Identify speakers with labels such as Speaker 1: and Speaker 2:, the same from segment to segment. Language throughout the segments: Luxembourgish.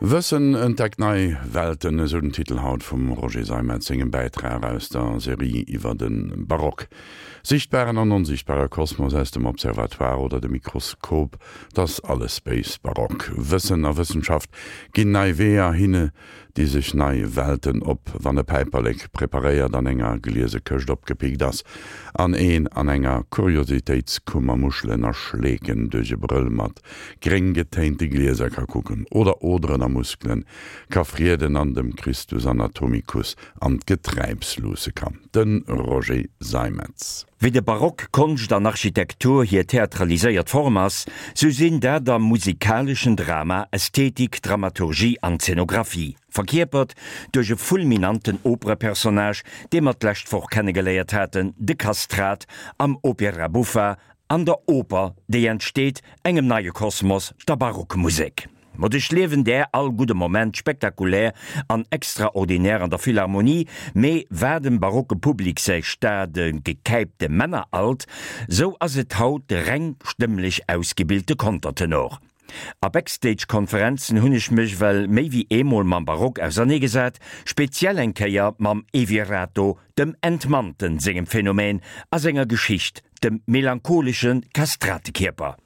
Speaker 1: Wëssen entdeckt nei Welten, esou den Titel haut vum Roger Seimetz sengem Bäitrag aus der Serie iwwer de Barock. Sichtbaren an onsichtbare Kosmos aus dem Observatoire oder dem Mikroskop, 't ass alles béis Barock. Wëssen a Wëssenschaft ginn nei Weeër, hinne di sech nei Welten op, wann e Päiperlek preparéiert an enger gliese Këscht opgepickt ass an een an enger Kuriositéitskummer Muschelen a Schleeken duerch e Brëll mat gréng getéinte Glieser ka kucken oder Oderen a Muskelen ka frieden an dem Christus Anatomicus an d'Geträips luusse kann. De Roger Seimetz.
Speaker 2: Wéi de Barock Konscht an Architektur hir theatraliséiert Form ass, sou sinn dat am musikaleschen Drama Ästhetik, Dramaturgie an Zenographie, verkierpert duerch e fulminanten Operepersonnage, dee mer d'lescht Woch kennegeléiert haten, de Kastrat am Opera buffa an der Oper, déi entsteet, engem neie Kosmos, der Barockmusek. Ma duerchliewen där all gudde Moment spektakulär an extraordinär an der Philharmonie, mee war dem barocke Public säi stade gekäipte Männeralt, sou ass et haut de reng stëmmlech ausgebilte Kontertenor. A Backstage-Konferenzen hunn ech mech well méi wéi eemol mam Barock auserneegesat, speziell eng Kéier mam Evirato, dem Entmannten sengem Phänomen a senger Geschicht, dem melancholesche Kastratekierper.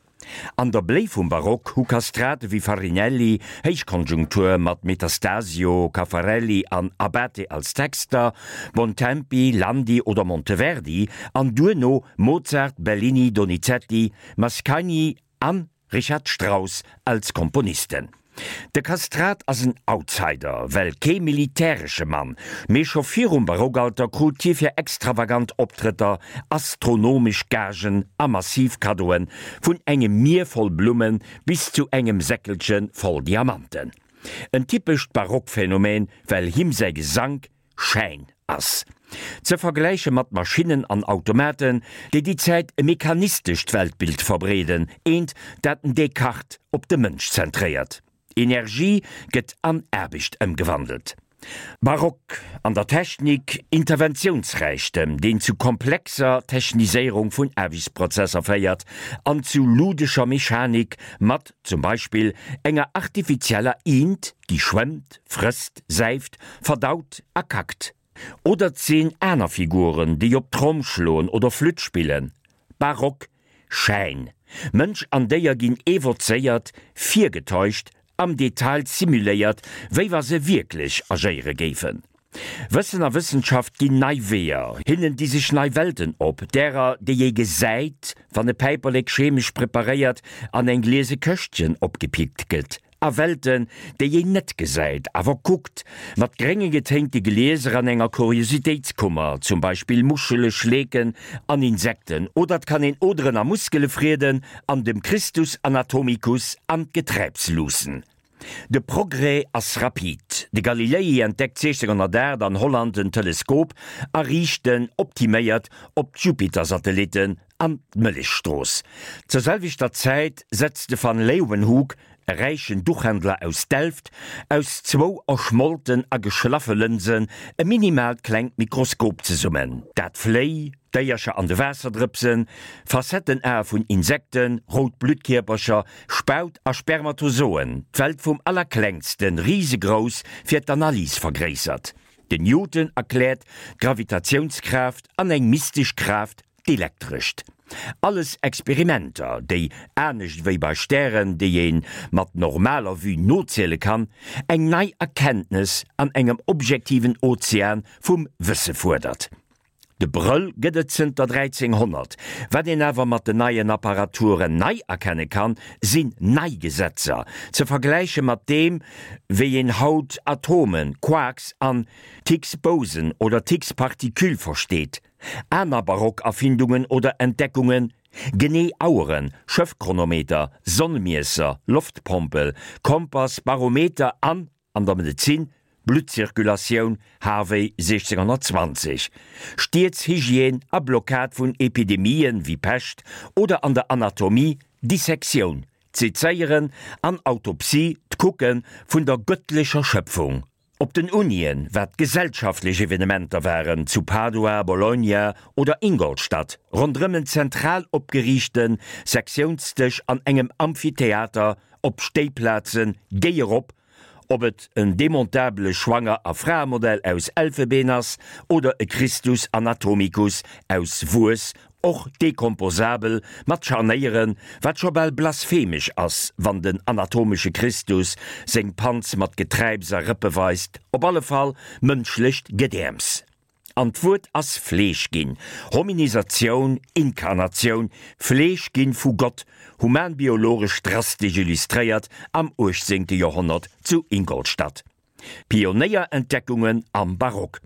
Speaker 2: An der Bléi vum Barock hu Kastrate wéi Farinelli, Héichkonjunktur mat Metastasio, Caffarelli an Abate als Texter, Bontempi, Landi oder Monteverdi an duerno Mozart, Bellini, Donizetti, Mascagni an Richard Strauss als Komponisten. De Kastrat ass en Outsider, well kee militäresche Mann, mee scho virum Barockalter krut hie fir extravagant Optrëtter astronomesch Gagen a massiv Kaddoen, vun engem Mier voll Blumme bis zu engem Säckelche voll Diamanten. En typescht Barockphänomen, well him säi Gesank Schäin ass. Ze vergläiche mat Maschinnen an Automaten, déi déi Zäit e mechanistescht Weltbild verbreeden, eent, dat den Descartes op de Mënsch zentréiert. Energie gëtt an Aarbecht ëmgewandelt. Barock an der Technik, Interventiounsräichtem, deen zu komplexer Techniséierung vun Aarbechtsprozesser féiert an zu ludescher Mechanik mat zum Beispill enger artifizieller Iint, déi schwëmmt, frësst, säift, verdaut a kackt. Oder 't sinn aner Figuren, déi op d'Tromm schloen oder Flütt spillen. Barock, Schäin. Mënsch an Déier ginn evozéiert, virgetäuscht, am Detail simuléiert, wéi wa se wierklech agéiere géifen. Wëssen a Wëssenschaft ginn nei Weeër, hinnen di sech nei Welten op, därer, déi ee gesäit, wann e Päiperlek chemesch preparéiert an eng gliese Këschtchen opgepickt gëtt, a Welten, déi een net gesäit, awer kuckt, mat grénge getéinte Glieser an enger Kuriositéitskummer, zum Beispill Muschele, Schleeken an Insekten, oder 't kann een Oderen a Muskele frieden an dem Christus Anatomicus an d'Geträips luussen. De Progrès ass rapid. De Galilei entdeckt 1608 an Holland den Teleskop a riicht en, optiméiert, op d'Jupiter-Satellitten an d'Mëllechstrooss. Zur selwechter Zäit setzt de van Leeuwenhoek, e räichen Duchhändler aus Delft, aus zwou erschmolten a geschlaffe Lënsen e minimaalt klengt Mikroskop zesummen, dat Fléi, Déiercher an de Waasserdrëpsen, Facettenae vun Insekten, rout Bluttkierpercher, Spaut a Spermatozoen, d'Welt vum Allerklengsten, risegrouss, fir d'Analys vergréissert. Den Newton erkläert d'Gravitatiounskraaft an eng mystesch Kraaft, d'elektrescht. Alles Experimenter, déi, anescht wéi bei Stären, déi ee mat normaler Vue noziele kann, eng nei Erkenntnes an engem objektiven Ozean vum Wësse fuerdert. De Brëll gëtt et zënter 1300. Wat een awer mat den neien Apparaturen nei erkenne kann, sinn nei Gesetzer, ze vergläiche mat deem, wéi een haut Atomen, Quarks an d'Higgs-Boson oder d'Higgs-Partikül versteet. Aner barock Erfindungen oder Entdeckungen, genee Aueren, Schëffchronometer, Sonnemiesser, Loftpompel, Kompass, Barometer an An der Medezin, Bluttzirkulatioun, Harvey 1620, Stieds-Hygiène a Blockad vun Epidemien wéi Pescht, oder an der Anatomie, Dissektioun, d'Sezéieren an Autopsie, d'Kucke vun der gëttlecher Schëpfung. Op den Unien, wat gesellschaftlech Evenementer waren, zu Padua, Bologna oder Ingolstadt, ronderëm en zentral opgeriichte Sektiounsdësch an engem Amphitheater, op Stéiplazen, géi erop! Ob et en demontabele Schwanger a Fraemodell aus Elfebeen ass oder e Christus anatomicus aus Wues, och dekomposabel, mat Scharnéieren, wat scho bal blasphemesch ass, wann den anatomesche Christus seng Panz mat Geträips a Rëppe weist, op alle Fall mënschlecht Gedäerms. An d'Wuert ass Fleesch ginn, Hominisatioun, Inkarnatioun, Fleesch ginn vu Gott, humanbiologesch drastesch illustréiert am uechtzéngte Joerhonnert zu Ingolstadt. Pionéierentdeckungen am Barock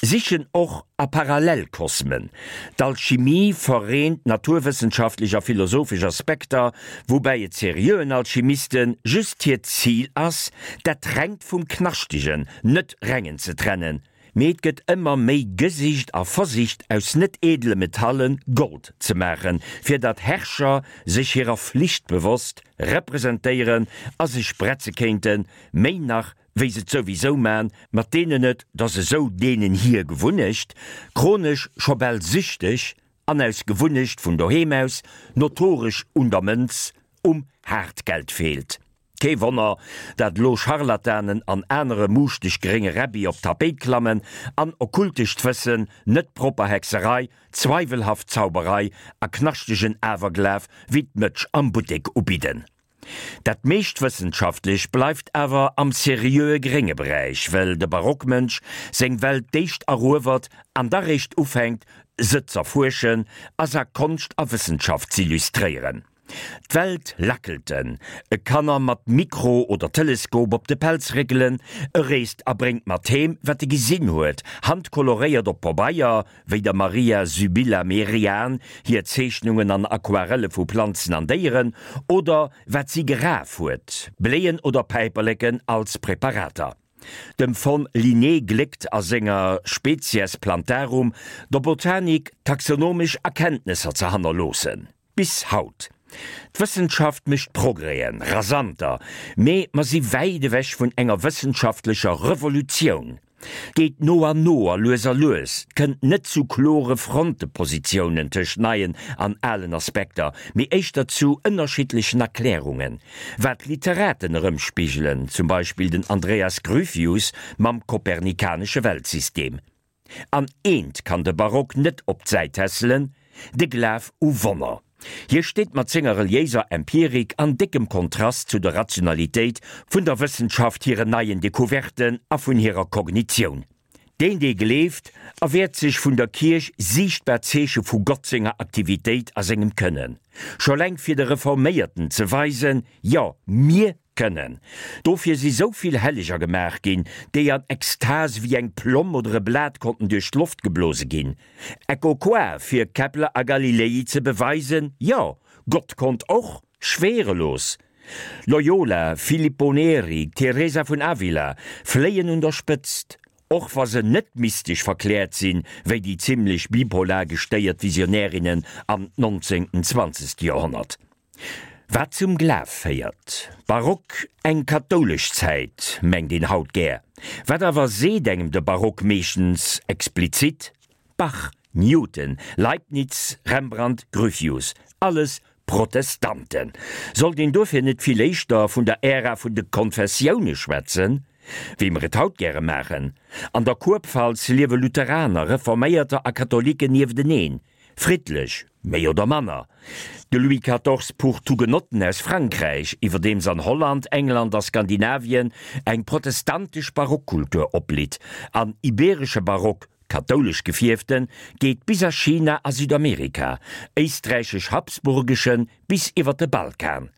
Speaker 2: sichen och a Parallelkosmen. D'Alchimie vereent naturwëssenschaftlech a philosophesch Aspekter, woubäi et seriöen Alchimiste just hiert Zil ass, dat Rengt vum Knaschtegen, net Rengen ze trennen. Mee et gëtt ëmmer méi gesicht a versicht aus net edele Metalle Gold ze maachen, fir datt Herrscher sech hirer Flicht bewosst representéieren a sech bretze kéinten, méi nach wéi se et souwisou man, mat deenen et, 't ass esou deenen hir Gewunnecht, chronesch scho bal süchteg an aus Gewunnecht vun doheem aus notoresch un der Mënz, um Haartgeld feelt. Kee Wonner, dat elo Scharlatanen an anere muuschteg grénge Räbbi op d'Tapéit klammen an okkultescht Wëssen, net propper Hexerei, zweiwelhaft Zauberei a knaschtegen Awerglaf wéi d'Mëtsch am Buttek ubidden. Dat meescht Wëssenschaftlech bleift awer am seriöe grénge Beräich, well de Barockmënsch seng Welt d'éischt eruewert an da réischt ufänkt, se z'erfuerschen a s'a Konscht a Wëssenschaft z'illustréieren. D'Welt lackelt en, e kann er mat Mikro oder Teleskop op de Pelz réckelen, e reest a bréngt mat heem, wat e gesinn huet, handkoloréiert op Pabeier, wéi der Maria Sybilla Merian hir Zeechnungen an Aquarelle vu Planzen an Déieren, oder wat si geraf huet, Bléien oder Päiperleken als Präparater. Dem von Linné gléckt a senger Species Plantarum der Botanik taxonomesch Erkenntnesser ze hannerloossen. Bis haut. D'Wëssenschaft mécht Progrèsen, rasanter, mee mer si wäit ewech vun enger wëssenschaftlecher Revolutioun. Geet no an no a lues a lues, 't kënnt net zu klore Frontepositiounen tëscht neien an alen Aspekter, mee éischter zu ënnerschiddlechen Erklärungen, wat d'Literaten erëmspigelen, zum Beispill den Andreas Gryphius mam kopernikanesche Weltsystem. An eent kann de Barock net op d'Säit tässelen, de Glaf u Wonner. Hie steet mat senger reliéiser Empirik an déckem Kontrast zu der Rationalitéit vun der Wëssenschaft hiren neien Decouverten a vun hirer Kognitioun. Deen, dee gleeft, erwäert sech vun der Kierch siichtbar Zeeche vu Gott senger Aktivitéit a sengem Kënnen. Scho leng fir de Reforméierten ze weisen, Jo, mir Kënnen. Dofir si sou vill Helleger gemaach ginn, déi an Ekstase wéi eng Plomm oder e Blat konnten duerch d'Loft geblose ginn. Ecco qua, fir Kepler a Galilei ze beweisen, jo, Gott konnt och schwerelos. Loyola, Filippo Neri, Teresa vun Avila fléien un der Spëtzt, och wa se net mystesch verkläert sinn, wéi déi zimlech bipolar gestéiert Visionärinnen am nonzéngten, zwanzegste Joerhonnert. Wat zum Glaf féiert. Barock, eng kathoulesch Zäit, mengt een haut gär. Wat awer seet engem de Barock meeschtens explizit? Bach, Newton, Leibniz, Rembrandt, Gryphius, alles Protestanten. Sollt een dofir net vill éischter vun der Ära vun de Konfessioune schwätzen, wéi mer et haut gäre maachen? An der Kurpfalz liewe Lutheraner, Reforméierter a Katholiken niefteneen. Friddlech, méi oder manner. De Louis quatorze pucht d'Hugenotten aus Frankräich, iwwerdeems an Holland, England a Skandinavien eng protestantesch Barockkultur opblitt, an ibeeresche Barock, kathoulesch gefierften, geet bis a China a Südamerika, éisträichesch-habsburgeschen bis iwwer de Balkan.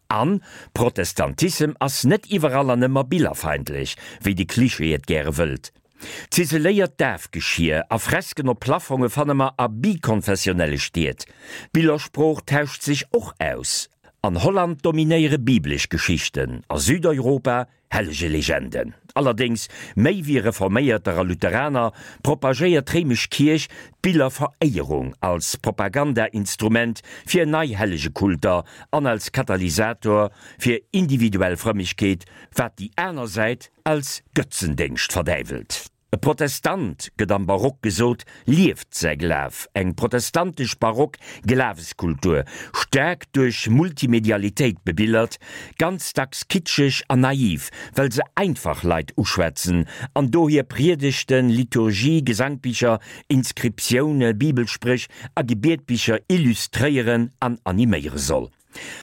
Speaker 2: An Protestantissem ass net iwwerall an ëmmer billerfeindlech, wéi de Cliché et gäre wëllt. Ziseléiert Dafgeschier a Fresken op Plafonge fanne mer a bikonfessionelle Stied. D'Billersprooch tauscht sech och aus. An Holland dominéiere biblesch Geschichten, a Südeuropa Hellegelegenden. Allerdéngs, méi wéi Reforméierter a Lutheraner, propagéiert d'réimesch Kierch d'Billerveréierung als Propagandainstrument fir nei Hellegekulter an als Katalysator fir individuell Frëmmegkeet, wat déi aner Säit als Götzendéngscht verdäiwelt. E Protestant, gëtt am Barock gesot, lieft säi Glaf, eng protestantesch barock Glaweskultur, staark duerch Multimedialitéit bebillert, ganz dacks kitscheg an naiv, well se einfach Leit uschwätzen an dohier Priedegten, Liturgie, Gesangbicher, Inscriptioune, Bibelspréch a Gebietbicher illustréieren an animéiere soll.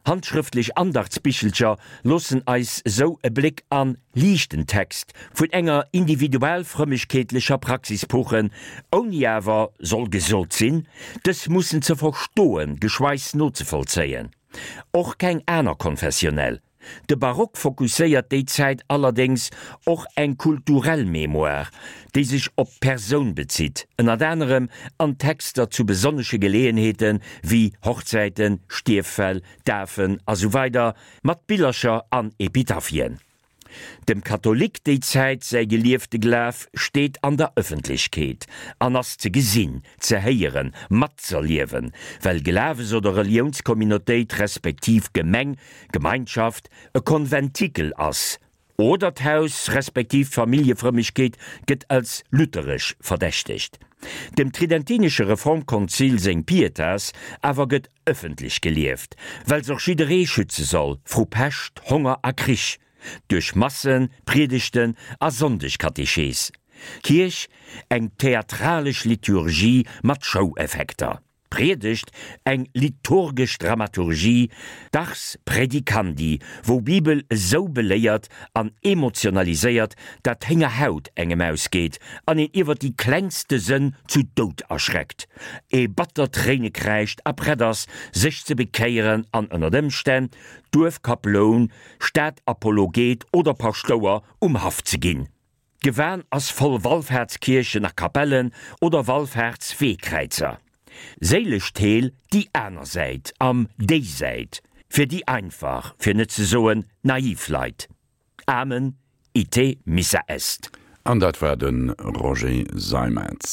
Speaker 2: Handschrëftlech Andachtsbichelcher loossen eis sou e Bléck an liichten Text vun enger individual-frëmmegkeetlecher Praxis puchen, ouni awer, soll gesot sinn, dës mussen ze verstoen, geschweigs nozevollzéien. Och keng aner konfessionell. De Barock fokusséiert déi Zäit allerdéngs och eng kulturell Mémoire, déi sech op d'Persoun bezitt, ënnert anerem an Texter zu besonnesche Geleeënheete wéi Hochzäiten, Stierffäll, Dafen a sou weider mat Billercher an Epitaphien. Dem Katholik déi Zäit säi geliefte Glaf steet an der Ëffentlechkeet an ass ze gesinn, ze héieren, matzerliewen, well Glawes oder Reliounscommunautéit respektiv Gemeng, Gemeinschaft e Konventikel ass, oder d'Haus respektiv d'Familljefrëmmegkeet gëtt als lutheresch verdächtegt. Dem Tridentinesche Reformkonzil seng Pietas awer gëtt ëffentlech gelieft, well s'och jidderee schütze soll vru Pescht, Honger a Krich, duerch Massen, Priedegten a Sonndegkatechees. Kierch, eng theatralesch Liturgie mat Show-Effekter. D'Priedegt, eng liturgesch Dramaturgie, d'Ars praedicandi, wou Bibel esou beléiert an emotionaliséiert, dat d'Héngerhaut engem ausgeet an een iwwer déi klengste Sënn zu Doud erschreckt, ee batter Tréine kräischt a prett ass, sech ze bekéieren an ënnert Ëmstänn Duerfkaploun, Stadapologet oder Paschtouer um Haff ze ginn. D'Gewan ass voll Wallfaartskierchen a Kapellen oder Wallfaartsweekräizer. Séilesch Heel déi aner Säit, am Déisäit, fir déi einfach, fir net ze soen naiv Leit. Amen, ite missa est.
Speaker 1: An dat war de Roger Seimetz.